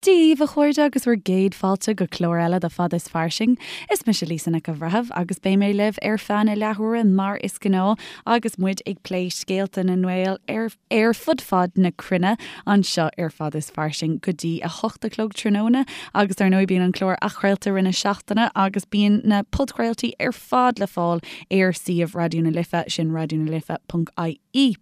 Dia dhaoibh a chairde agus bhur gcéad fáilte go clár eile de Fada is Fairsing. Is mise Lisa Nic an Bhreithimh agus beidh mé libh ar feadh na leathuaire mar is gnáth agus muid ag plé scéalta na nGael ar ar fud fad na cruinne anseo ar Fada is Fairsing go dtí 8 a chlog tráthnóna agus dar ndóigh bíonn an clár athchraolta i rith na seachtaine agus bíonn na podchraoltaí ar fad le fáil ar suíomh Raidió na Life, sin raidionalife.ie.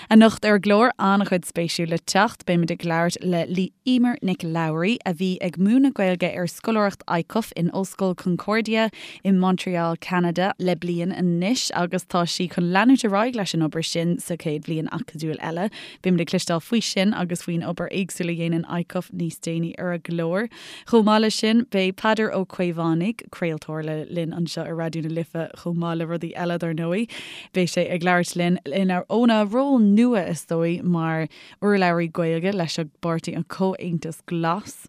Anocht ar an gclár, an-chuid spéisiúil le teacht. Beimid ag labhairt le Emer Nic Labhraí, a bhí ag múineadh Gaeilge ar scoláireacht ICUF in Ollscoil Concordia i Montreal, Ceanada le bliain anois agus tá sí chun leanúint ar aghaidh leis an obair sin sa chéad bhliain acadúil eile. Beimid ag cloisteáil faoi sin agus faoin obair éagsúil a dhéanann ICUF níos déanaí ar an gclár. Chomh maith leis sin, beidh Peadar Ó Caomhánaigh, craoltóir le linn anseo ar Raidió na Life chomh maith le rudaí eile dar ndóigh, beidh sé ag labhairt linn óna ról nua is dóigh mar urlabhraí Gaeilge leis an bpáirtí an Comhaontas Glas.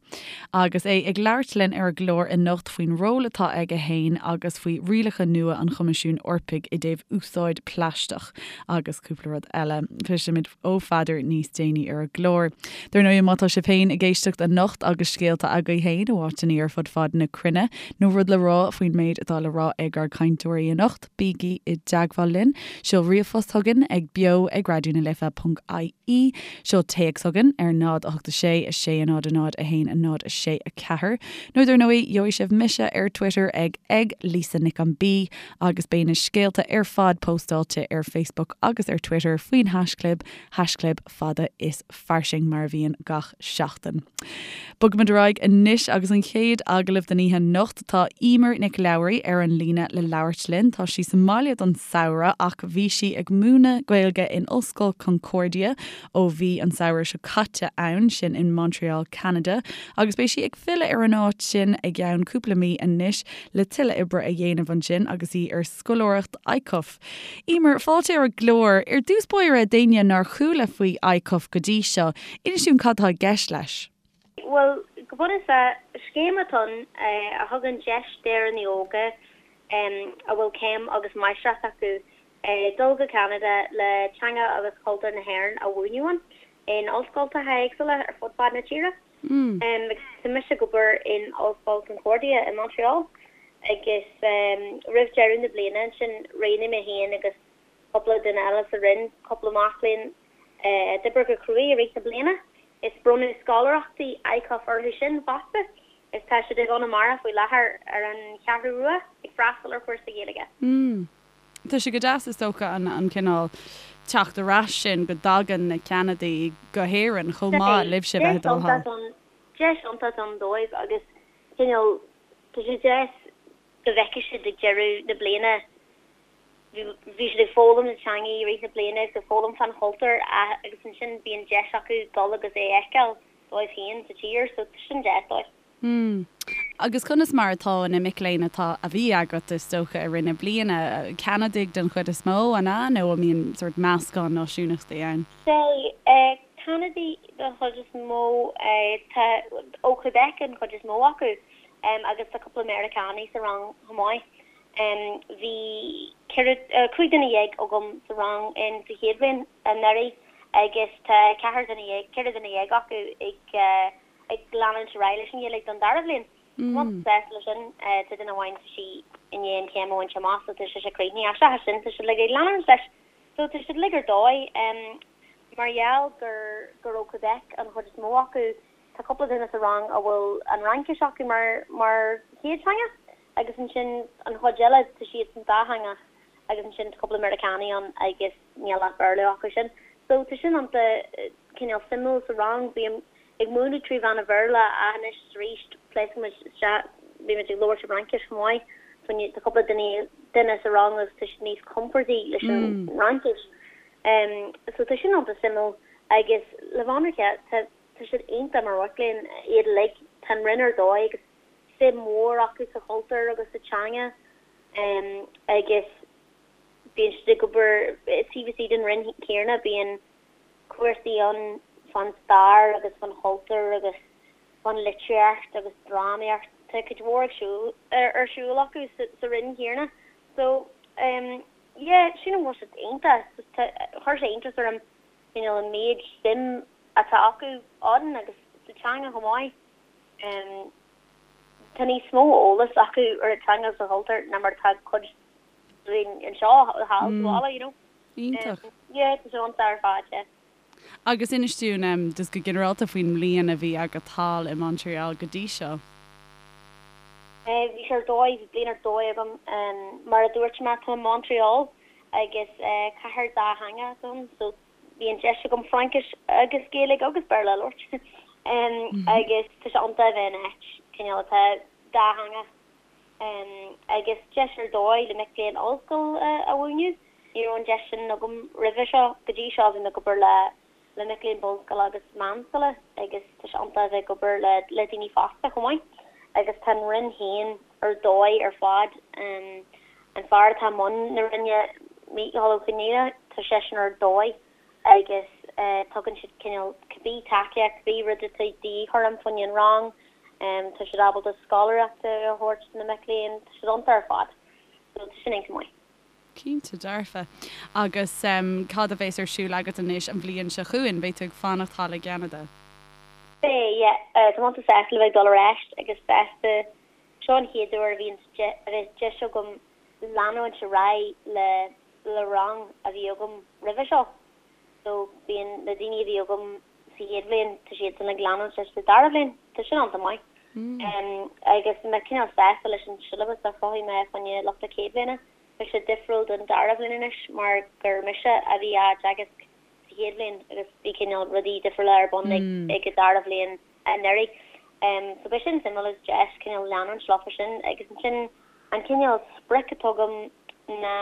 Agus é ag labhairt linn ar an gclár anocht faoin ról atá aige fhéin agus faoi rialacha nua an Choimisiúin Eorpaigh i dtaobh úsáid plaisteach agus cúpla rud eile. Cloisfimid ó Pheadar níos déanaí ar an gclár. Dar ndóigh, má tá sibh féin ag éisteacht anocht agus scéalta agaibh féin ó áiteanna ar fud fad na cruinne, nó rud le rá faoin méid atá le rá ag ár gcainteoirí anocht, bígí i dteagmháil linn. Seol ríomhphost chugainn ag beo ag raidionalife.ie, seol téacs chugainn ar 0 8 6 6 0 0 1 0 6 4, nó dar ndóigh, gheobhaidh sibh mise ar Twitter ag ag Lisa Nic an B. Agus beidh na scéalta ar fad póstáilte ar Facebook agus ar Twitter faoin haischlib, haischlib fada is fairsing mar a bhíonn gach seachtain. Bogfaimid ar aghaidh anois agus an chéad agallamh den oíche anocht. Tá Emer Nic Labhraí ar an líne le labhairt linn. Tá sí sa mbaile don samhradh ach bhí sí ag múineadh Gaeilge in Ollscoil Concordia ó bhí an samhradh seo caite ann, sin in Montreal, Ceanada, agus beidh sí ag filleadh ar an áit sin i gceann cúpla mí anois le tuilleadh oibre a dhéanamh ansin agus í ar scoláireacht ICUF. Emer, fáilte ar an gclár. Ar dtús báire, d'éinne nár chuala faoi ICUF go dtí seo, inis dúinn cad tá i gceist leis. Bhuel, go bunúsach, scéim atá ann a thugann deis d'Éireannaigh óga a bhfuil céim agus máistreacht acu dul go Ceanada le teanga agus cultúr na hÉireann a mhúineadh ann in ollscoltacha éagsúla ar fud fad na tíre. Agus tá mise ag obair in Ollscoil Concordia i Montreal agus roimh deireadh na bliana ansin roghnaigh mé féin agus cúpla duine eile sa roinn, cúpla mac léinn a d'oibrigh go cruaidh i rith na bliana, is bronnadh scoláireachtaí ICUF orthu sin fosta is tá siad i gConamara faoi láthair ar an Cheathrú Rua ag freastal ar chúrsa Gaeilge. Tá sé go deas is dócha an cineál teacht ar ais sin go dtagann na Ceanadaigh go hÉirinn chomh maith libhse bheith ag dul thall. Deis iontach ann dóibh agus cineál tá sé deas go bhfeicfidh siad ag deireadh na bliana bhí siad ag foghlaim na teanga i rith na bliana agus ag foghlaim fán chultúr agus ansin bíonn deis acu dul agus é a fheiceáil dóibh féin sa tír so tá sin deas dóibh. Mm. Agus conas mar atá na mic léinn atá, a bhí agat, is dócha, i rith na bliana? Ceanadaigh den chuid is mó, an ea, nó an mbíonn sórt meascán náisiúnachtaí ann? Sea, Ceanadaigh den chuid is mó, tá, ó Quebec an chuid is mó acu, agus tá cúpla Meiriceánaigh sa rang chomh maith. Bhí 14, 15 duine agam sa rang in sa chéad bhliain anuraidh agus tá 14 duine, 14 duine acu ag, ag leanúint ar aghaidh leis an Ghaeilge don dara bhliain. Tá mé sásta leis sin. Tá duine amháin, tá sí i ndiaidh an chéim a bhaint amach so tá sise críochnaithe ach seachas sin tá siad uilig ag leanúint leis. So tá siad uilig ar dóigh. Mar gheall gur gur ó Quebec an chuid is mó acu, tá cúpla duine sa rang a bhfuil an Fhraincis acu mar mar chéad teanga agus ansin an chuid eile tá siadsan dátheangach agus ansin tá cúpla Meiriceánaigh ann agus níl ach Béarla acu sin. So tá sin iontach cineál suimiúil sa rang. Bím ag múineadh trí mheán an Bhéarla ach anois is arís pléascaimid isteach, bímid ag labhairt i bhFraincis chomh maith. Tá cúpla duine duine sa rang agus tá siad níos compordaí leis an bhFraincis. So tá sin iontach suimiúil agus le bheith ionraic tá tá siad iontach mar mhic léinn, iad uilig. Tá an roinn ar dóigh agus suim mhór acu sa chultúr agus sa teanga agus bíonn siad ag obair taobh istigh den roinn chéanna, bíonn cúrsaí ann fán stair agus fán chultúr agus fán litríocht agus drámaíocht. Tá cuid mhór ag siúl, ar siúl acu sa roinn chéanna. So, yeah, sílim go bhfuil siad iontach. Tá, chuir sé iontas orm, you know, an méid suim atá acu ann agus sa teanga chomh maith. Tá níos mó eolas acu ar an teanga agus an chultúr ná mar atá cuid dínn anseo thall sa bhaile, you know. Iontach. Yeah, tá sé iontach ar fad, yeah. Agus inis dúinn just go ginearálta faoin mbliain a bhí agat thall i Montreal go dtí seo. Bhí sé ar dóigh, bhí bliain ar dóigh agam. Mar a dúirt mé, tá mé i Montreal agus cathair dátheangach atá ann so bhí an deis agam Fraincis agus Gaeilge agus Béarla a labhairt agus tá sé iontach a bheith in áit cineál atá dátheangach agus deis ar dóigh le mic léinn ollscoile a mhúineadh. Ní raibh an deis sin agam roimhe seo. Go dtí seo bhí mé ag obair le le mic léinn bunscoile agus meánscoile agus tá sé iontach a bheith ag obair le le daoine fásta chomh maith. Agus tá an Roinn féin ar dóigh ar fad. An fear atá i mbun na Roinne, Mícheál Ó Conghaile, tá seisean ar dóigh agus tugann siad cineál cibé tacaíocht, cibé rud atá de dhíth orm fá choinne an rang, tá siad ábalta scoláireacht a thabhairt do na mic léinn, tá siad iontach ar fad. So tá sin iontach maith. Cinnte dearfa. Agus cad a bheas ar siúl agat anois an bhliain seo chugainn? Beidh tú ag fanacht thall i gCeanada? Beidh, yeah. Tá mé iontach sásta le bheith ag dul ar ais agus sásta, seo an chéad uair a bhíonn a bheas deis agam leanúint ar aghaidh le le rang a bhí agam roimhe seo. So bíonn na daoine a bhí agam sa chéad bhliain, tá siadsan ag leanúint leis sa dara bhliain. Tá sin iontach maith. Agus tá mé cineál sásta leis an siollabas a chruthaigh mé fá choinne lucht na céad bhliana. Tá sé difriúil don dara bhliain anois mar gur mise a bhí á dteagasc sa chéad bhliain agus bhí cineál rudaí difriúla ar bun ag an dara bhliain anuraidh. So beidh sin suimiúil agus deis cineál leanúint leofa sin agus ansin an cineál sprioc atá agam ná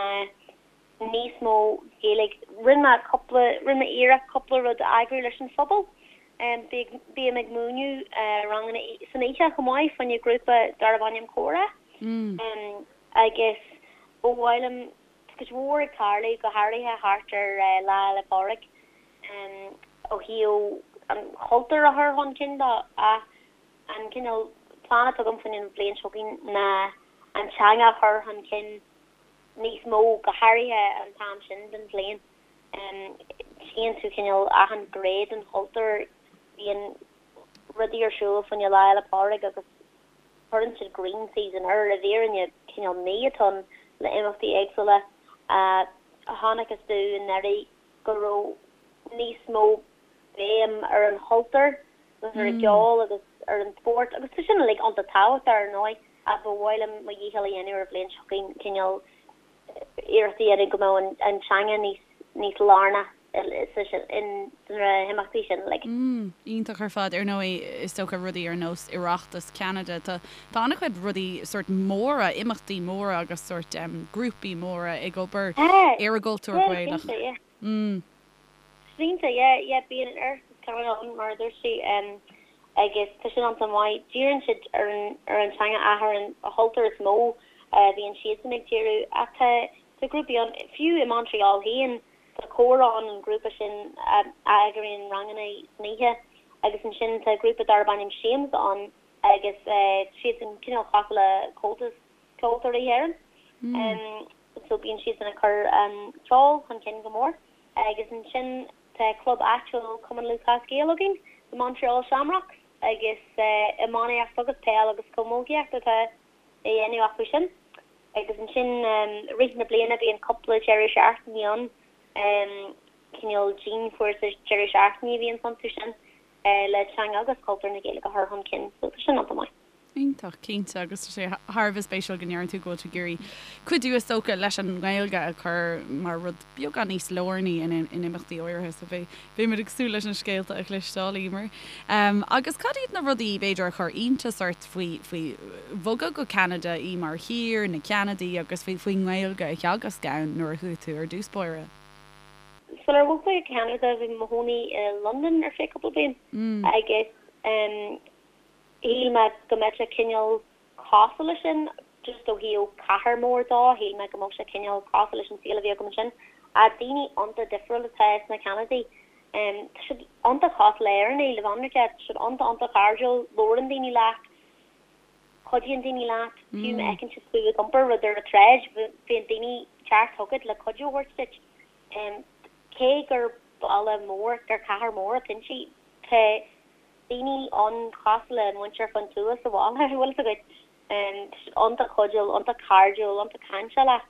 níos mó Gaeilge. Rinne mé cúpla, rinne mé iarracht cúpla rud a eagrú leis an phobal. Bím ag múineadh ranganna san oíche chomh maith fá choinne grúpa darb ainm Comhrá. Agus ba mhaith liom, tá cuid mhór ag tarlú, go háirithe thart ar Lá Fhéile Pádraig, ó thaobh an chultúir a chur chun cinn de ach an cineál plean atá agam fá choinne an bhliain seo chugainn ná an teanga a chur chun cinn níos mó, go háirithe an t-am sin den bhliain. Tchíonn tú cineál achan ghné den chultúr, bíonn rudaí ar siúl fá choinne Lá Fhéile Pádraig agus cuireann siad green season air, i bhfírinne cineál mí atá ann le imeachtaí éagsúla. Chonacthas domh anuraidh go raibh níos mó béim ar an chultúr agus ar an gceol agus ar an spórt agus tá sin uilig iontach tábhachtach ar ndóigh ach ba mhaith liom mo dhícheall a dhéanamh ar an bhliain seo chugainn cineál iarracht a dhéanamh go mbeadh an teanga níos níos lárnach sna himeachtaí sin uilig. Mm, iontach ar fad. Ar ndóigh, is dócha rudaí ar nós Oireachtas Cheanada, tá tá an-chuid rudaí sórt móra, imeachtaí móra agus sórt grúpaí móra ag obair ar an gcultúr Gaelach. Cinnte, yeah. Mm. Cinnte, yeah, yeah, bíonn an Oireachtas Ceanada ann, mar a dúirt tú, agus tá sin iontach maith. Díríonn siad ar an, ar an teanga ach ar an chultúr is mó a bhíonn siadsan ag díriú. Ach tá, tá grúpaí ann, fiú i Montreal féin, tá Comhrá ann, an grúpa sin a eagraíonn ranganna san oíche, agus ansin tá grúpa darb ainm Siamsa ann agus siadsan cineál cosúil le Comhaltas Ceoltóirí Éireann. So bíonn siadsan ag cur an ceol chun cinn go mór. Agus ansin tá club áitiúil Cumann Lúthchleas Gael againn, the Montreal Shamrocks, agus iománaíocht agus peil agus camógaíocht atá á dhéanamh acu sin. Agus ansin i rith na bliana bíonn cúpla deireadh seachtaine ann, cineál dianchúrsa deireadh seachtaine a bhíonn iontu sin le teanga agus cultúr na Gaeilge a chur chun cinn. So tá sin iontach maith. Iontach, cinnte, agus tá sé thar a bheith spéisiúil go ndeireann tú go bhfuil tú ag iarraidh cuidiú is dócha leis an nGaeilge a chur mar rud beagán níos lárnaí in imeachtaí áirithe, so beidh beimid ag súil leis na scéalta a chloisteáil, Emer. Agus cad iad na rudaí b'fhéidir a chuir iontas ort faoi faoi bhogadh go Ceanada í mar thír, na Ceanadaigh agus faoi faoin nGaeilge a theagasc ann nuair a chuaigh tú ar dtús báire? Sular bhog mé go Ceanada bhí mé i mo chónaí i Londain ar feadh cúpla bliain agus Shíl mé go mbeadh sé cineál cosúil leis sin, just ó thaobh cathair mór dó, shíl mé go mbeadh sé cineál cosúil leis an saol a bhí agam ansin. Ach daoine iontach difriúil atá sna Ceanadaigh. Tá siad iontach cosúil le Éireannaigh, le bheith ionraic, tá siad iontach iontach cairdiúil, labhrann daoine leat, cuidíonn daoine leat, fiú má fheiceann siad tú ag iompar rud ar an tsráid, bíonn daoine teacht chugat le cuidiú a thabhairt duit. Cé gur baile mór, gur cathair mór atá inti, tá. daoine ann cosúil le muintir fán tuath sa bhaile, bhfuil fhios agat. Tá siad iontach cuidiúil, iontach cairdiúil, iontach cainteálach.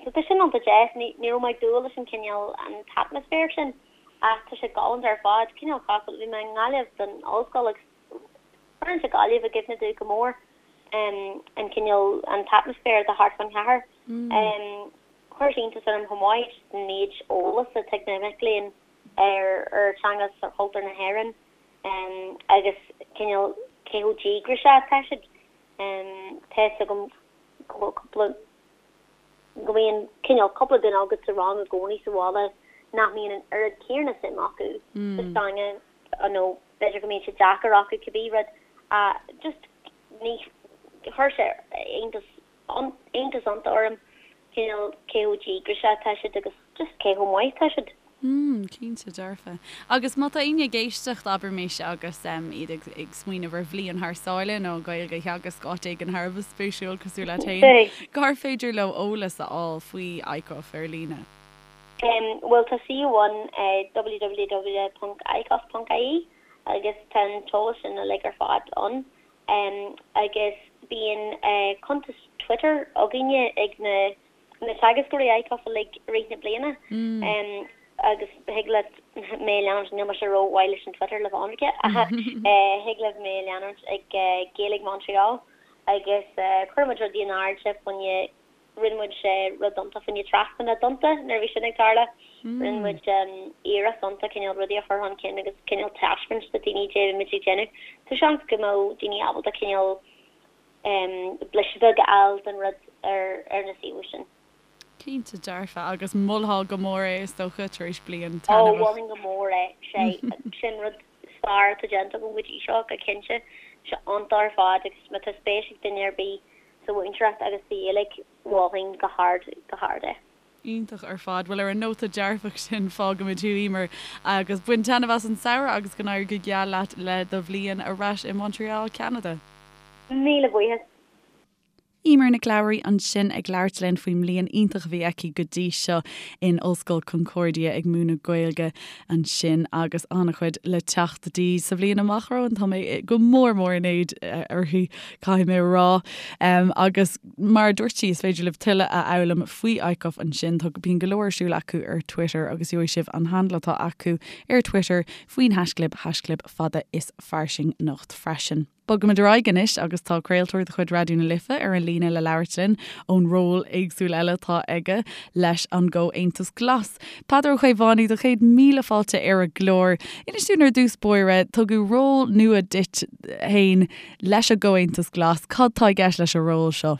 So tá sin iontach deas. Ní raibh mé ag dúil leis an cineál, an t-atmaisféar sin ach tá sé galánta ar fad. Cineál cosúil, bhí mé i nGaillimh don ollscoil agus cuireann sé Gaillimh i gcuimhne domh go mór, an cineál, an t-atmaisféar atá thart fán chathair. Chuir sé iontas orm chomh maith just an méid eolas atá ag na mic léinn ar ar teanga is ar chultúr na hÉireann agus cineál cé chomh díograiseach atá siad. Tá fhios agam go bhfuil cúpla, go mbíonn cineál cúpla duine agat sa rang i gcónaí sa bhaile nach mbíonn an oiread céanna suim acu sa teanga nó b'fhéidir go mbíonn sé deacair acu cibé rud just ní, chuir sé iontas iontas iontach orm cineál cé chomh díograiseach atá siad agus just cé chomh maith atá siad. Mm, cinnte dearfa. Agus má tá éinne ag éisteacht, abraimis, agus iad ag ag smaoineamh ar bhliain thar sáile nó Gaeilge a theagasc áit éigin thar a bheith spéisiúil cosúil leat féin, cár féidir leo eolas a fháil faoi ICUF ar líne? Bhuel tá suíomh ann www.icuf.ie agus tá an t-eolas sin uilig ar fad ann. Agus bíonn cuntas Twitter againne ag na na teagascóirí ICUF uilig i rith na bliana agus thig leat mé a leanúint, níl mise ró-mhaith leis an Twitter le bheith ionraic, ach thig libh mé a leanúint ag Gaeilge Montreal agus cuireann muid rudaí in airde fá choinne Rinne muid rud iontach fá choinne Trasna na dTonnta nuair a bhí sin ag tarlú. Rinne muid iarracht iontach cineál rudaí a chur chun cinn agus cineál taispeáint do daoine cad é a bhí muid ag déanamh. So seans go mbeadh daoine ábalta cineál blaiseadh beag a fháil den rud ar na suíomh sin. Cinnte dearfa, agus mholfá go mór é is dócha, tar éis bliain taitneamhach. Ó, mholfainn go mór é. Sé sin rud is fearr atá déanta agam go dtí seo, go cinnte. Tá sé iontach ar fad agus má tá spéis ag duine ar bith sa mhúinteoireacht agus sa Ghaeilge, mholfainn go hard, go hard é. Iontach ar fad. Bhuel, ar an nóta dearfach sin, fágfaimid thú, Emer, agus bain taitneamh as an samhradh agus go n-éirí go geal leat le do bhliain ar ais i Montreal, Ceanada. Míle buíochas. Emer Nic Labhraí ansin ag labhairt linn faoin mbliain iontach a bhí aici go dtí seo in Ollscoil Concordia ag múineadh Gaeilge ansin agus an-chuid le teacht di sa bhliain amach romhainn. Tá mé go mór mór in éad uirthi, caithfidh mé a rá. Agus mar a dúirt sí, is féidir libh tuilleadh a fhoghlaim faoi ICUF ansin. Tá bíonn go leor ar siúl acu ar Twitter agus gheobhaidh sibh an handle atá acu ar Twitter faoin haischlib, haischlib fada is fairsing anocht freisin. Bogaimid ar aghaidh anois agus tá craoltóir de chuid Raidió na Life ar an líne le labhairt linn ón ról éagsúil eile atá aige leis an gComhaontas Glas. Peadar Ó Caomhánaigh, do chéad míle fáilte ar an gclár. Inis dúinn ar dtús báire, tugadh ról nua duit féin leis an gComhaontas Glas. Cad tá i gceist leis an ról seo?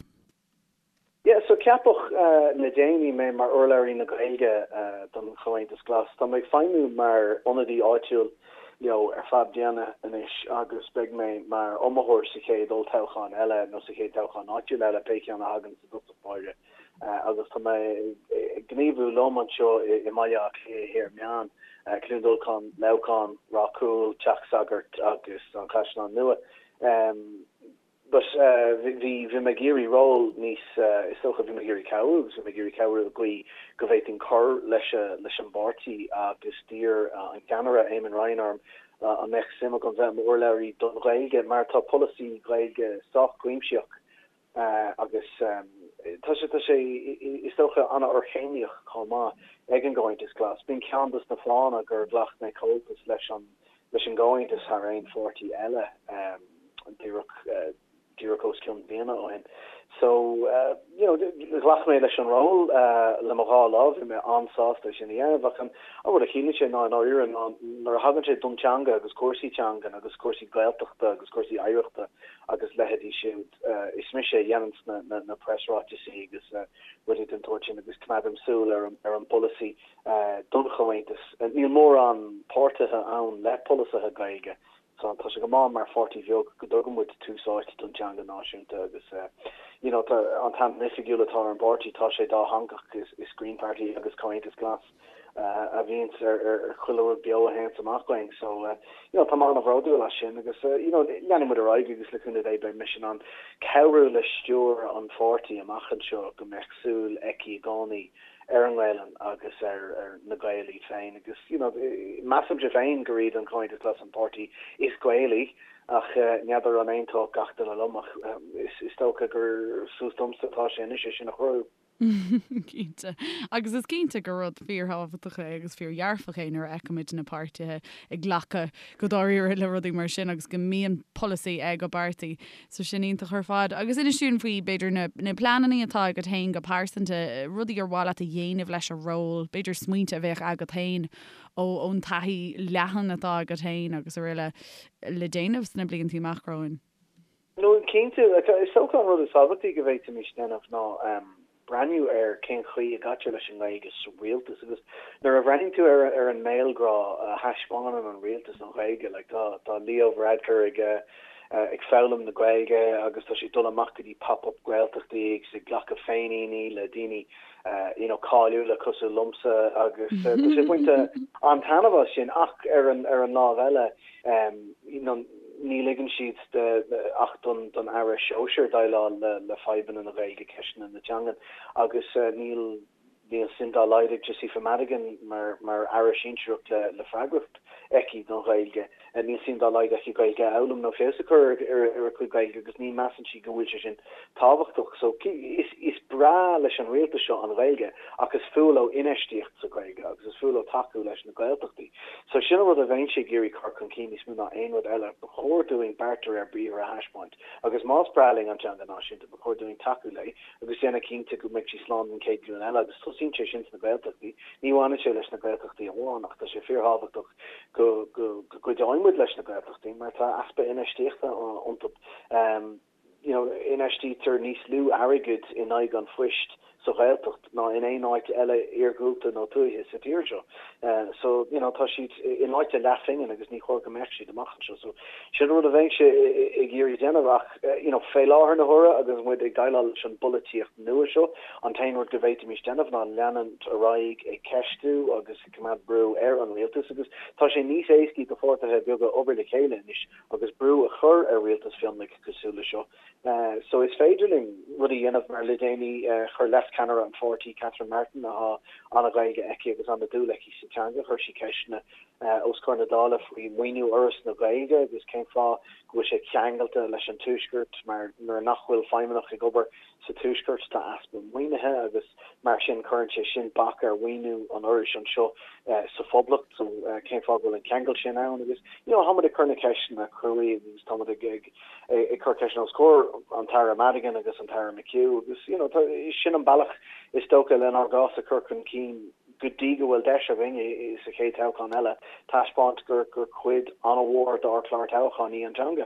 Yeah, so ceapadh le déanaí mé mar urlabhraí na Gaeilge don Chomhaontas Glas. Tá mé ag feidhmiú mar ionadaí áitiúil leo ar feadh bliana anois agus beidh mé mar iomaitheoir sa chéad olltoghchán eile nó sa chéad toghchán áitiúil eile, pé ceann a thagann i dtosach báire. Agus tá mé ag gníomhú liom anseo i mBaile Átha Cliath Thiar Meán, Cluain Dolcáin, Leamhcán, Ráth Cúil, Teach Sagairt agus an Caisleán Nua. But bhí, bhí mé ag iarraidh ról níos, is dócha, bhí mé ag iarraidh cabhrú agus bhí mé ag iarraidh cabhrú i gcaoi go bhféadfainn cur leis, leis an bpáirtí agus d'iarr an ceannaire, Eamon Ryan orm an mbeadh suim agam bheith i m'urlabhraí don Ghaeilge mar tá polasaí Gaeilge sách cuimsitheach agus tá sé, tá sé, is dócha, an-fhorchéimníoch chomh maith ag an gComhaontas Glas. B'in ceann dos na fáthanna gur ghlac mé comhaltas leis an leis an gComhaontas thar aon pháirtí eile díreach díreach os cionn bliana ó shin. So, you know, ghlac mé leis an ról le mo dhá lámh, bhí mé an-sásta é sin a dhéanamh ach an rud a chiallaíonn sé ná i ndáiríre ná nuair a thagann sé don teanga agus cúrsaí teangan agus cúrsaí Gaeltachta agus cúrsaí oidhreachta agus leithéidí siúd, is mise a dhéananns na na na preasráiteasaí agus rudaí den tsórt sin agus coimeádaim súil ar an ar an bpolasaí don Chomhaontas. Níl mórán páirtithe ann le polasaithe Gaeilge so tá sé go maith mar pháirtí bheag go dtugann muid tús áite don teanga náisiúnta agus you know tá an t-ainm oifigiúil atá ar an bpáirtí tá sé dátheangach is Green Party agus Comhaontas Glas a bhíonns ar ar chuile rud beo a théanns amach uainn so you know tá mé an-bhródúil as sin agus you know leanfaidh muid ar aghaidh agus le cúnamh Dé beidh mise in ann cabhrú le stiúir an pháirtí amach anseo go mbeadh súil aici i gcónaí. ar an nGaelainn agus ar na Gaeil iad féin agus you know measaimse féin gur iad an Comhaontas Glas an páirtí is Gaelaí ach n'fheadar an aontódh gach duine liom ach is dócha gur suas domsa atá sé anois é sin a chruthú. Cinnte. Agus is cinnte gur rud fíorthábhachtach é agus fíordhearfach é nuair a fheicimid na páirtithe ag glacadh go dáiríre le rudaí mar sin agus go mbíonn polasaí ag an bpáirtí. So sin iontach ar fad. Agus inis dúinn faoi, b'fhéidir, na na pleananna atá agat féin go pearsanta, rudaí ar mhaith leat a dhéanamh leis an ról, b'fhéidir smaointe a bheadh agat féin ó ón taithí leathan atá agat féin agus araile le déanamh sna blianta amach romhainn. No, cinnte, is dócha an rud is tábhachtaí go bhféadfaimis déanamh ná breathnú ar cén chaoi a gcaitear leis an nGaeilge sa rialtas agus nuair a bhreathnaíonn tú ar ar an mbéalghrá a thaispeánann an rialtas don Ghaeilge, like tá tá Leo Varadkar ag ag foghlaim na Gaeilge agus tá sé ag dul amach go dtí pop-up Gaeltachtaí agus ag glacadh féiníní le daoine you know cáiliúla cosúil liomsa agus tá sé ag baint an-taitneamh as sin ach ar an ar an lámh eile you know ní ligeann siad ach don don aire sóisir déileáil le le fadhbanna na Gaeilge, ceisteanna na teangan agus níl níl suim dá laghad ag Josepha Madigan mar mar aire sinsearach le le freagracht aici don Ghaeilge. Níl suim dá laghad aici Gaeilge a fhoghlaim nó feabhas a chur ar a cuid Gaeilge agus ní measann sí go bhfuil sé sin tábhachtach. So is is breá leis an rialtas seo an Ghaeilge ach is fuath leo infheistíocht sa Ghaeilge agus is fuath leo tacú leis na Gaeltachtaí. So sin an rud a bheinnse ag iarraidh cur chun cinn níos mó ná aon rud eile. Ba chóir dúinn beart de réir briathair a thaispeáint agus más breá linn an teanga náisiúnta ba chóir dúinn tacú léi agus déanamh cinnte go mbeidh sí slán don chéad ghlúin eile agus tosaíonn sé sin sna Gaeltachtaí. Ní bhaineann sé leis na Gaeltachtaí amháin ach tá sé fíorthábhachtach go go gcuideoidh muid leis na Gaeltachtaí mar tá easpa infheistíochta iontu. You know, infheistítear níos lú airgid in aghaidh an phoist sa Ghaeltacht ná in aon áit eile iargúlta nó tuaithe sa tír seo. So, you know, tá siad in áit a leathphingin agus ní chóir go mbeadh siad amach anseo. So, sin rud a bheinnse ag iarraidh déanamh ach, you know, fé láthair na huaire agus muid ag déileáil leis an bpolaitíocht nua seo, an t-aon rud go bhféadfaimis déanamh ná leanúint ar aghaidh ag ceistiú agus ag coimeád brú ar an rialtas agus tá sé níos éascaí do pháirtithe beaga obair le chéile anois agus brú a chur ar rialtas mhionlaigh cosúil le seo. So is féidir linn rudaí a dhéanamh mar le déanaí chuir leascheannaire an pháirtí, Catherine Martin, atá an-Ghaeilge aici agus an-dúil aici sa teanga, chuir sí ceisteanna os comhair na Dála faoi mhaoiniú Fhoras na Gaeilge agus cén fáth go bhfuil sé ceangailte leis an Tuaisceart mar nuair nach bhfuil feidhmeannach ag obair sa Tuaisceart tá easpa maoinithe agus mar sin cuireann sé sin bac ar mhaoiniú an Fhorais anseo sa Phoblacht. So cén fáth go bhfuil an ceangal sin ann agus you know táimid ag cur na ceisteanna cruaidh agus táimid ag ag ag cur ceisteanna os comhair an tAire Madigan agus an tAire McHugh agus you know tá sin an bealach is dócha lenár gcás a chur chun cinn go dtí go bhfuil deis againn sa chéad toghchán eile taispeáint gur gur cuid an-mhór dár chlár toghcháin í an teanga.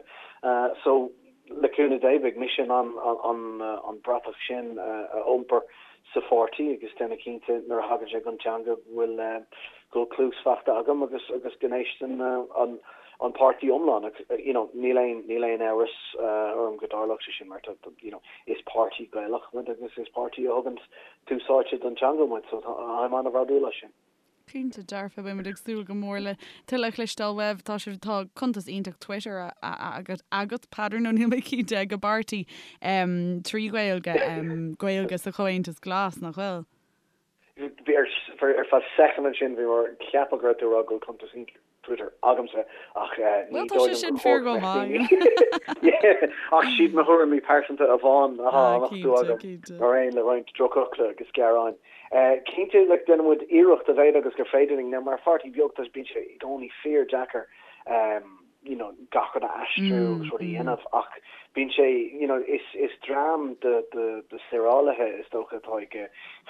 So Le cúnamh Dé, beidh mise in ann an bratach sin a iompar sa pháirtí agus déanamh cinnte nuair a thagann sé don teanga go bhfuil go bhfuil cluas faighte agam agus agus go n-éisteann an an páirtí iomlán. You know, níl aon níl aon amhras orm go dtarlódh sé sin mar tá you know, is páirtí Gaelach muid agus is páirtí a thugann tús áite don teanga muid so táim an-bhródúil as sin. Cinnte dearfa, beidh muid ag súil go mór le tuilleadh a chloisteáil uaibh. Tá sibh, tá cuntas iontach Twitter agat, agat, Peadar, nó níl mé cinnte, ag an bpáirtí trí Ghaeilge, Gaeilge sa Chomhaontas Glas, nach bhfuil? Bhí, ar feadh soicind ansin, bhí mé ag ceapadh go raibh tú ag rá go bhfuil cuntas iontach Twitter agamsa ach ní Bhuel, tá dóigh sé liom sin gur fíor chóir go go mbeadh maith. daoine Ach siad mo thuairimí pearsanta amháin atá á Ah, nochtadh cinnte, agam, cinnte. mar aon le roinnt drochfhocla agus gearáin. Cinnte, like, déanann muid iarracht a mhéad agus gur féidir linn. Now, mar pháirtí beag, tá, bíonn sé i gcónaí fíor-deacair you know, gach rud a aistriú agus rud a dhéanamh ach bíonn sé, you know, is, is dream de, de, de saorálaithe is dócha atá ag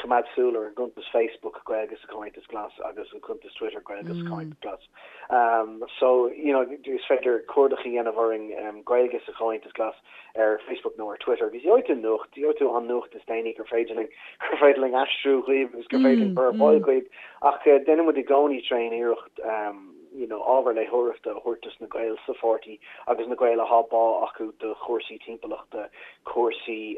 coimeád súil ar an gcuntas Facebook Gaeilge sa Chomhaontas Glas agus an cuntas Twitter Gaeilge sa Chomhaontas Glas. Um, so, you know, is féidir cuardach a dhéanamh orainn um, Gaeilge sa Chomhaontas Glas ar Facebook nó ar Twitter agus gheobhaidh tú nuacht, gheobhaidh tú an nuacht is déanaí gur féidir linn, gur féidir linn aistriú dhaoibh agus gur féidir linn cur ar fáil dhaoibh ach uh, déanann muid i gcónaí tréan iarracht um, you know ábhar léitheoireachta a thabhairt dos na Gaeil sa pháirtí agus na Gaeil athá bá acu do chúrsaí timpeallachta, cúrsaí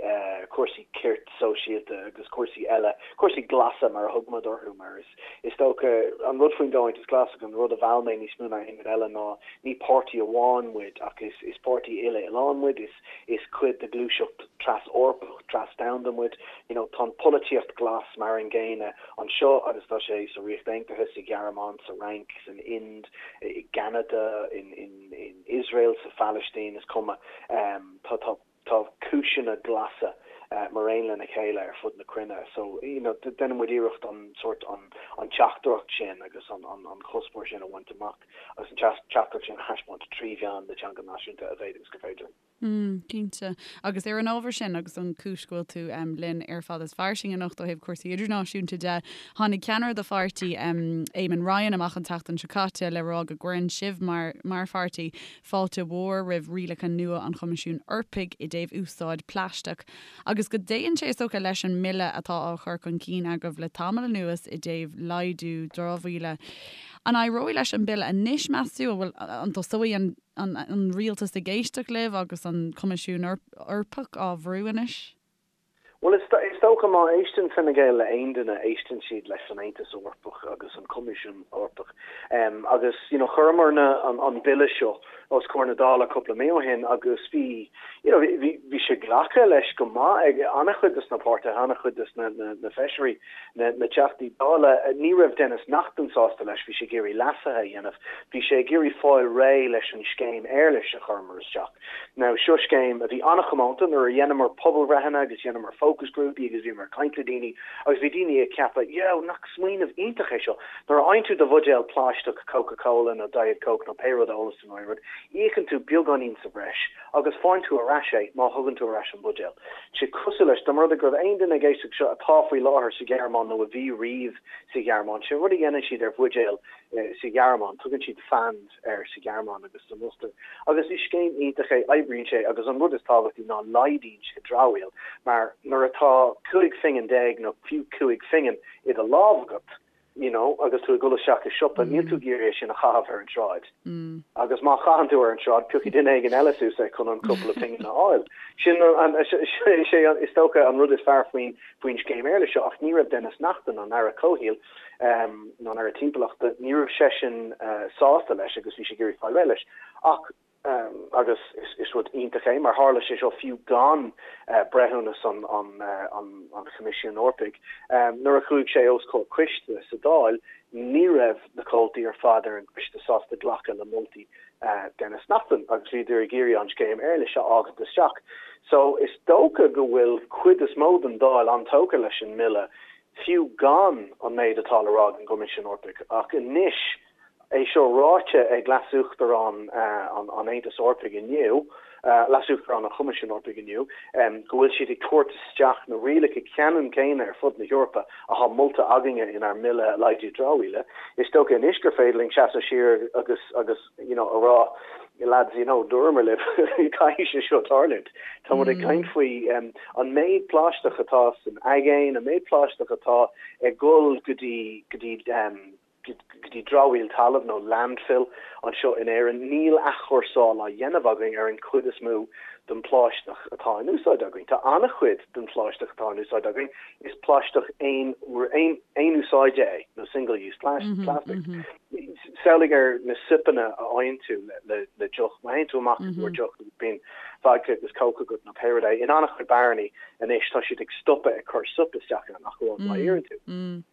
cúrsaí cirt sóisialta agus cúrsaí eile, cúrsaí glasa mar a thug muid orthu mar is is dócha an rud faoin gComhaontas Glas agus an rud a mheall mé níos mó ná aon rud eile ná ní páirtí amháin muid ach is is páirtí uile-oileáin muid, is is cuid de ghluaiseacht tras-Eorpach, tras-domhanda muid, you know tá an pholaitíocht glas mar an gcéanna anseo agus tá sé sa Ríocht Aontaithe, sa Ghearmáin, sa Fhrainc, san Ind, i gCeanada, in in Iosrael, sa Phalaistín, is cuma. Tá tá tá cúiseanna glasa mar aon lena chéile ar fud na cruinne. So, you know, déanann muid iarracht an sórt an an teachtaireacht sin agus an an an cuspóir sin a bhaint amach agus an teachtaireacht sin a thaispeáint trí mheán na teanga náisiúnta a mhéid agus gur féidir. Mm, cinnte. Agus ar an ábhar sin, agus an chúis go bhfuil tú linn ar Fada is Fairsing anocht ó thaobh cúrsaí idirnáisiúnta de, tháinig ceannaire do pháirtí, Eamon Ryan, amach an tseachtain seo caite le rá go gcuireann sibh mar, mar pháirtí, fáilte mhór roimh rialacha nua an Choimisiúin Eorpaigh i dtaobh úsáid plaisteach agus go dtéann sé, is dócha, leis an mbille atá á chur chun cinn agaibh le tamall anuas i dtaobh laghdú dramhaíola. An éireoidh leis an bille anois, meas tú? An bhfuil, an dtosóidh an an rialtas ag éisteacht libh agus an Coimisiún Eorpach á bhrú anois? Bhuel, is dócha má éisteann Fine Gael le aon duine, éisteann siad leis an Aontas Eorpach agus an Coimisiún Eorpach. Agus, you know, chuireamar na, an bille seo os comhair na Dála cúpla mí ó shin agus bhí, you know, bhí, bhí sé glactha leis go maith ag an-chuid de na páirtithe, an-chuid de na, na, na feisirí, na, na Teachtaí Dála. Ní raibh Denis Naughten sásta leis, bhí sé ag iarraidh leasuithe a dhéanamh, bhí sé ag iarraidh fáil réidh leis an scéim éarlais a chuireamar isteach. Now, seo scéim a bhí an-chomónta nuair a dheineamar pobalbhreitheanna agus dheineamar fócasghrúpaí agus bhíomar ag caint le daoine agus bhí daoine ag ceapadh, yeah, nach smaoineamh iontach é seo. Nuair a fhaigheann tú do bhuidéal plaisteach Coca Cola nó Diet Coke nó pé rud a ólas tú nó aon rud, íocann tú beagáinín sa bhreis agus faigheann tú ar ais é má thugann tú ar ais an buidéal. Sé cosúil leis, dá mba rud é go raibh aon duine ag éisteacht seo atá faoi láthair sa Ghearmáin nó a bhí riamh sa Ghearmáin, sé an rud a dhéanann siad ar bhuidéil sa Ghearmáin, tugann siad Pfand air sa Ghearmáin agus san Ostair. Agus is scéim iontach é, oibríonn sé agus an rud is tábhachtaí ná laghdaíonn sé dramhaíl mar nuair atá 15 phingin nó fiú 5 phingin i do lámh agat, you know, agus tú ag dul isteach i siopa, níl tú ag iarraidh é sin a chaitheamh ar an tsráid. Agus má chaitheann tú ar an tsráid, piocfaidh duine éigin eile suas é chun an cúpla pingin a fháil. Sin an, sé is dócha an rud is fearr faoin, faoin scéim éarlais seo ach ní raibh Denis Naughten, an Aire Comhshaoil, nó an Aire Timpeallachta, ní raibh seisean sásta leis agus bhí sé ag iarraidh fáil réidh leis. Ach, agus is rud iontach é, mar tharla sé seo fiú gan breithiúnas an Choimisiúin Eorpaigh, nuair a chuaigh sé os comhair coiste sa Dáil, ní raibh na comhaltaí ar fad ar an gcoiste sásta glacadh le moltaí Denis Naughten agus bhíodar ag iarraidh an scéim éarlais a fhágaint isteach. So, is dócha go bhfuil cuid is mó den Dáil an-tógtha leis an mbille fiú gan an méid atá le rá ag an gCoimisiún Eorpaigh. Ach anois, é seo ráite ag Leas-Uachtarán an Aontais Eorpaigh inniu, Leas-Uachtarán an Choimisiúin Eorpaigh inniu, go bhfuil siad ag tabhairt isteach na rialacha ceannann céanna ar fud na hEorpa atá molta againne inár mBille Laghdú Dramhaíola, is dócha anois gur féidir linn seasamh siar agus agus you know a rá lads you know dúramar libh caithfidh sé seo tarlúint. Tá muid ag caint faoi an méid plaisteach atá san aigéan, an méid plaisteach atá ag dul go dtí go dtí go dtí dramhaíl talaimh nó landfill anseo in Éirinn. Níl athchúrsáil á dhéanamh againn ar an chuid is mó den phlaisteach atá in úsáid againn. Tá an-chuid den phlaisteach atá in úsáid againn, is plaisteach aon aon úsáide é nó single use plastic. Samhlaigh ar na soipeanna a fhaigheann tú le deoch. Má théann tú amach i gcomhair deoch agus bíonn vodka agus coke agat nó pé rud é, in an-chuid beáranna anois tá siad ag stopadh ag cur soip isteach ann ach amháin má iarrann tú.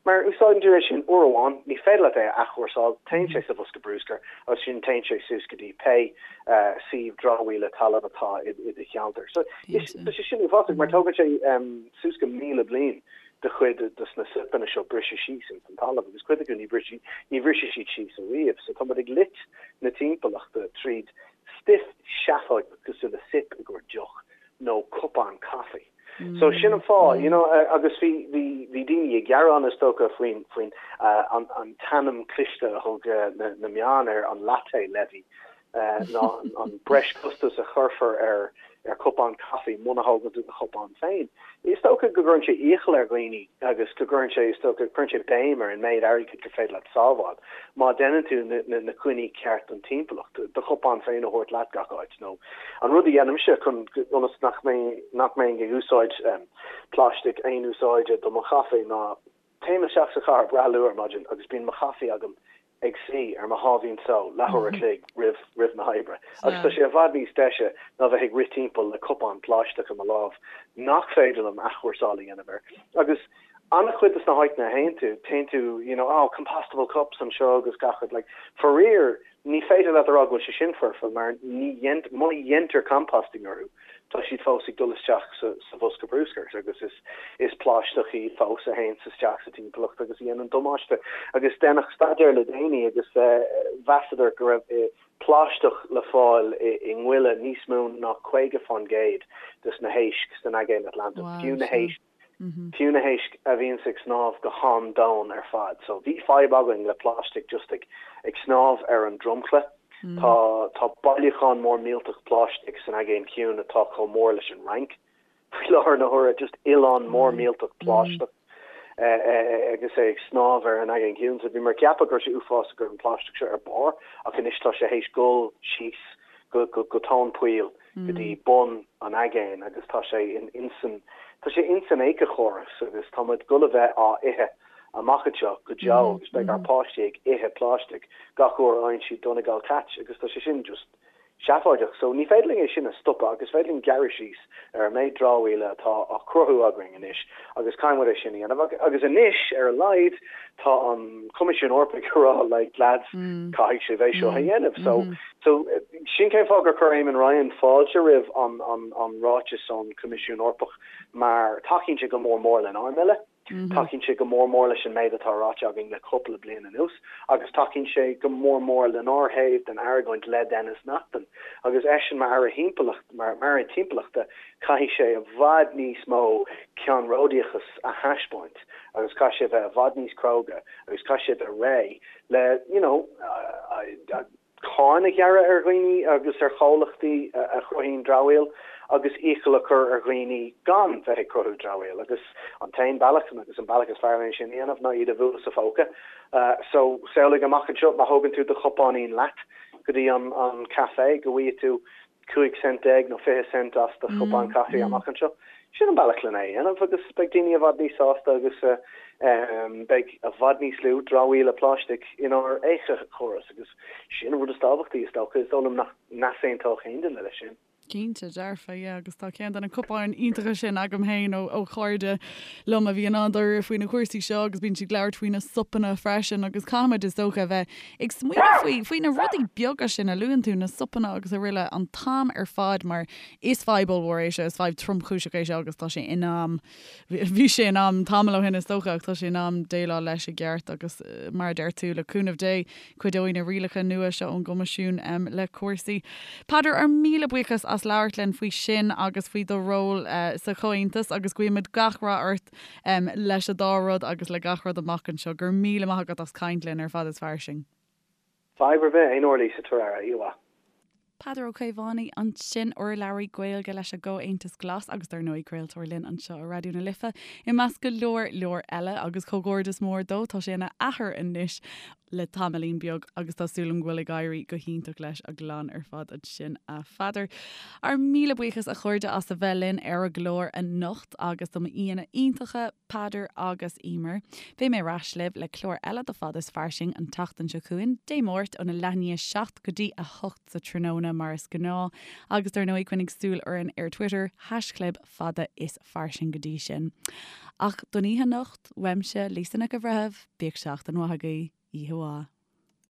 Mar úsáideann tú é sin uair amháin, ní féidir leat é a athchúrsáil, téann sé sa bhosca bruscair agus ansin téann sé suas go dtí pé suíomh dramhaíola talaimh atá i do cheantar. So tá sé sin uafásach mar tógann sé suas go 1,000 bliain do chuid dos na soipeanna seo briseadh síos ins an talamh agus cuid acu ní bhrisfidh ní bhrisfidh siad síos ariamh. So tá muid ag loit na timpeallachta tríd stuif seafóideach cosúil le soip i gcomhair deoch nó cupán caife. So sin an fáth, you know, agus bhí bhí bhí daoine ag gearán is dócha faoin faoin an an t-ainm cliste a thug na na meáin ar an latte levy ná an breis costas a chuirfear ar. ar chupán caife muna thógann tú do chupán féin. Is dócha go gcuireann sé iachall ar dhaoine agus go gcuireann sé, is dócha, cuireann sé béim ar an méid airgid gur féidir leat sábháil má deineann tú na coinní ceart don timpeallacht, do chupán féin a thabhairt leat gach áit nó an rud a dhéanaimse chun, ionas nach mbeinn, nach mbeinn ag úsáid plaisteach aon úsáide do mo chaife ná téim isteach sa chathair breá luath ar maidin agus bíonn mo chaife agam ag suí ar mo sháimhín só leathuair a chloig roimh roimh na hoibre agus tá sé i bhfad níos deise ná bheith ag rith timpeall le cupán plaisteach i mo lámh nach féidir liom athchúrsáil a dhéanamh air. Agus an-chuid de na háiteanna a théann tú, téann tú you know oh compostable cups anseo agus gach rud like faraor Ní féidir leat a rá go bhfuil sé sin foirfe mar ní má dhéantar composting orthu, tá siad fós ag dul isteach sa bhosca bruscair agus is is plaisteach iad fós a théanns isteach sa timpeallacht agus a dhéanann damáiste. Agus deineadh staidéar le déanaí agus mheasadar go raibh plaisteach le fáil i ngoile níos mó ná 50 fán gcéad des na héisc san Aigéan Atlantach, fiú na héisc Fiú na héisc a bhíonns ag snámh go han-domhain ar fad. So bhí fadhb againn le plaisteach just ag ag snámh ar an dromchla. Tá tá bailiúchán mór millteach plaisteach san Aigéan Ciúin atá chomh mór leis an Fhrainc faoi láthair na huaire, just oileán mór millteach plaisteach agus é ag snámh ar an Aigéan Ciúin. So bhíomar ag ceapadh go raibh sé uafásach go raibh an plaisteach seo ar barr ach anois tá sé théis dul síos go go go tóin poill. go dtí bun an aigéin agus tá sé insan, tá sé insan éiceachóras agus tá muid dul a bheith á ithe amach anseo go deo agus beidh ár páistí ag ithe plaisteach gach uair a fhaigheann siad Donegal Cat agus tá sé sin just seafóideach. So ní féidir linn é sin a stopadh agus is féidir linn gearradh síos ar an méid dramhaíola atá á cruthú againn anois agus caithfidh muid é sin a dhéanamh agus anois ar a laghad tá an Coimisiún Eorpaigh ag rá like lads caithfidh sibh é seo a dhéanamh. So So, sin cén fáth gur chuir Eamon Ryan fáilte roimh an ráiteas ón Choimisiún Eorpach mar tacaíonn sé go mór mór lenár mbille, tacaíonn sé go mór mór leis an méid atá ráite againn le cúpla bliain anuas agus tacaíonn sé go mór mór lenár thaobh den argóint le Denis Naughten. Agus eisean mar Aire Thimpeallacht, mar Aire Timpeallachta, caithfidh sé i bhfad níos mó ceannródaíochas a thaispeáint agus caithfidh sé a bheith i bhfad níos cróga agus caithfidh sé a bheith réidh le, you know, cáin a ghearradh ar dhaoine agus ar chomhlachtaí a chruthaíonn dramhaíl agus iachall a chur ar dhaoine gan bheith ag cruthú dramhaíl agus an t-aon bealach agus an bealach is fearr lena sin a dhéanamh ná iad a bhualadh sa phóca. So, samhlaigh amach anseo má thógann tú do chupáinín leat go dtí an café go bhfaighidh tú 15 cent nó 20 cent as do chupán caife amach anseo. Sin an bealach lena é a dhéanamh agus beidh daoine i bhfad níos sásta agus beidh i bhfad níos lú dramhaíola pláistigh inár éiceachóras agus sin an rud is tábhachtaí is dócha. Is dóigh liom nach n-easaontódh aon duine leis sin. Cinnte, dearfa, yeah, agus tá ceann de na cupáin iontacha sin agam féin ó ó chairde liom a bhíonn an-dáiríre faoi na cúrsaí seo agus bíonn siad ag labhairt faoi na sopanna freisin agus caithfimid is dócha a bheith Ag smaoineamh faoi, faoi na rudaí beaga sin a luann tú, na sopanna agus araile, an t-am ar fad mar is fadhb ollmhór é seo, is fadhb tromchúiseach é seo agus tá sé in am, bhí sé in am tamall ó shin is dócha ach tá sé in am déileáil leis i gceart agus mar a deir tú, le cúnamh Dé, cuideoidh na rialacha nua seo ón gCoimisiún le cúrsaí. Peadar, ár míle buíochas as labhairt linn faoi sin agus faoi do ról sa Chomhaontas agus guímid gach rath ort leis an dá rud agus le gach rud amach anseo. Go raibh míle maith agat as caint linn ar Fada is Fairsing. Fadhb ar bith, aon uair Lisa, tabhair aire, oíche mhaith. Peadar Ó Caomhánaigh ansin, urlabhraí Gaeilge leis an gComhaontas Glas agus dar ndóigh craoltóir linn anseo ar Raidió na Life, i measc go leor leor eile agus comhghairdeas mór dó, tá sé ina athair anois le tamaillín beag agus tá súil agam go bhfuil ag éirí go hiontach leis an gclann ar fad ansin a Pheadair. Ár míle buíochas a chairde as a bheith linn ar an gclár anocht agus do m'aíonna iontacha, Peadar agus Emer. Beidh mé ar ais libh le clár eile de Fada is Fairsing an tseachtain seo chugainn, Dé Máirt óna leath i ndiaidh 7 go dtí 8 sa tráthnóna mar is gnáth agus dar ndóigh coinnigh súil orainn ar Twitter, haischlib fada is fairsing go dtí sin. Ach don oíche anocht, uaimse, Lisa Nic an Bhreithimh, bíodh seachtain mhaith agaibh, oíche mhaith.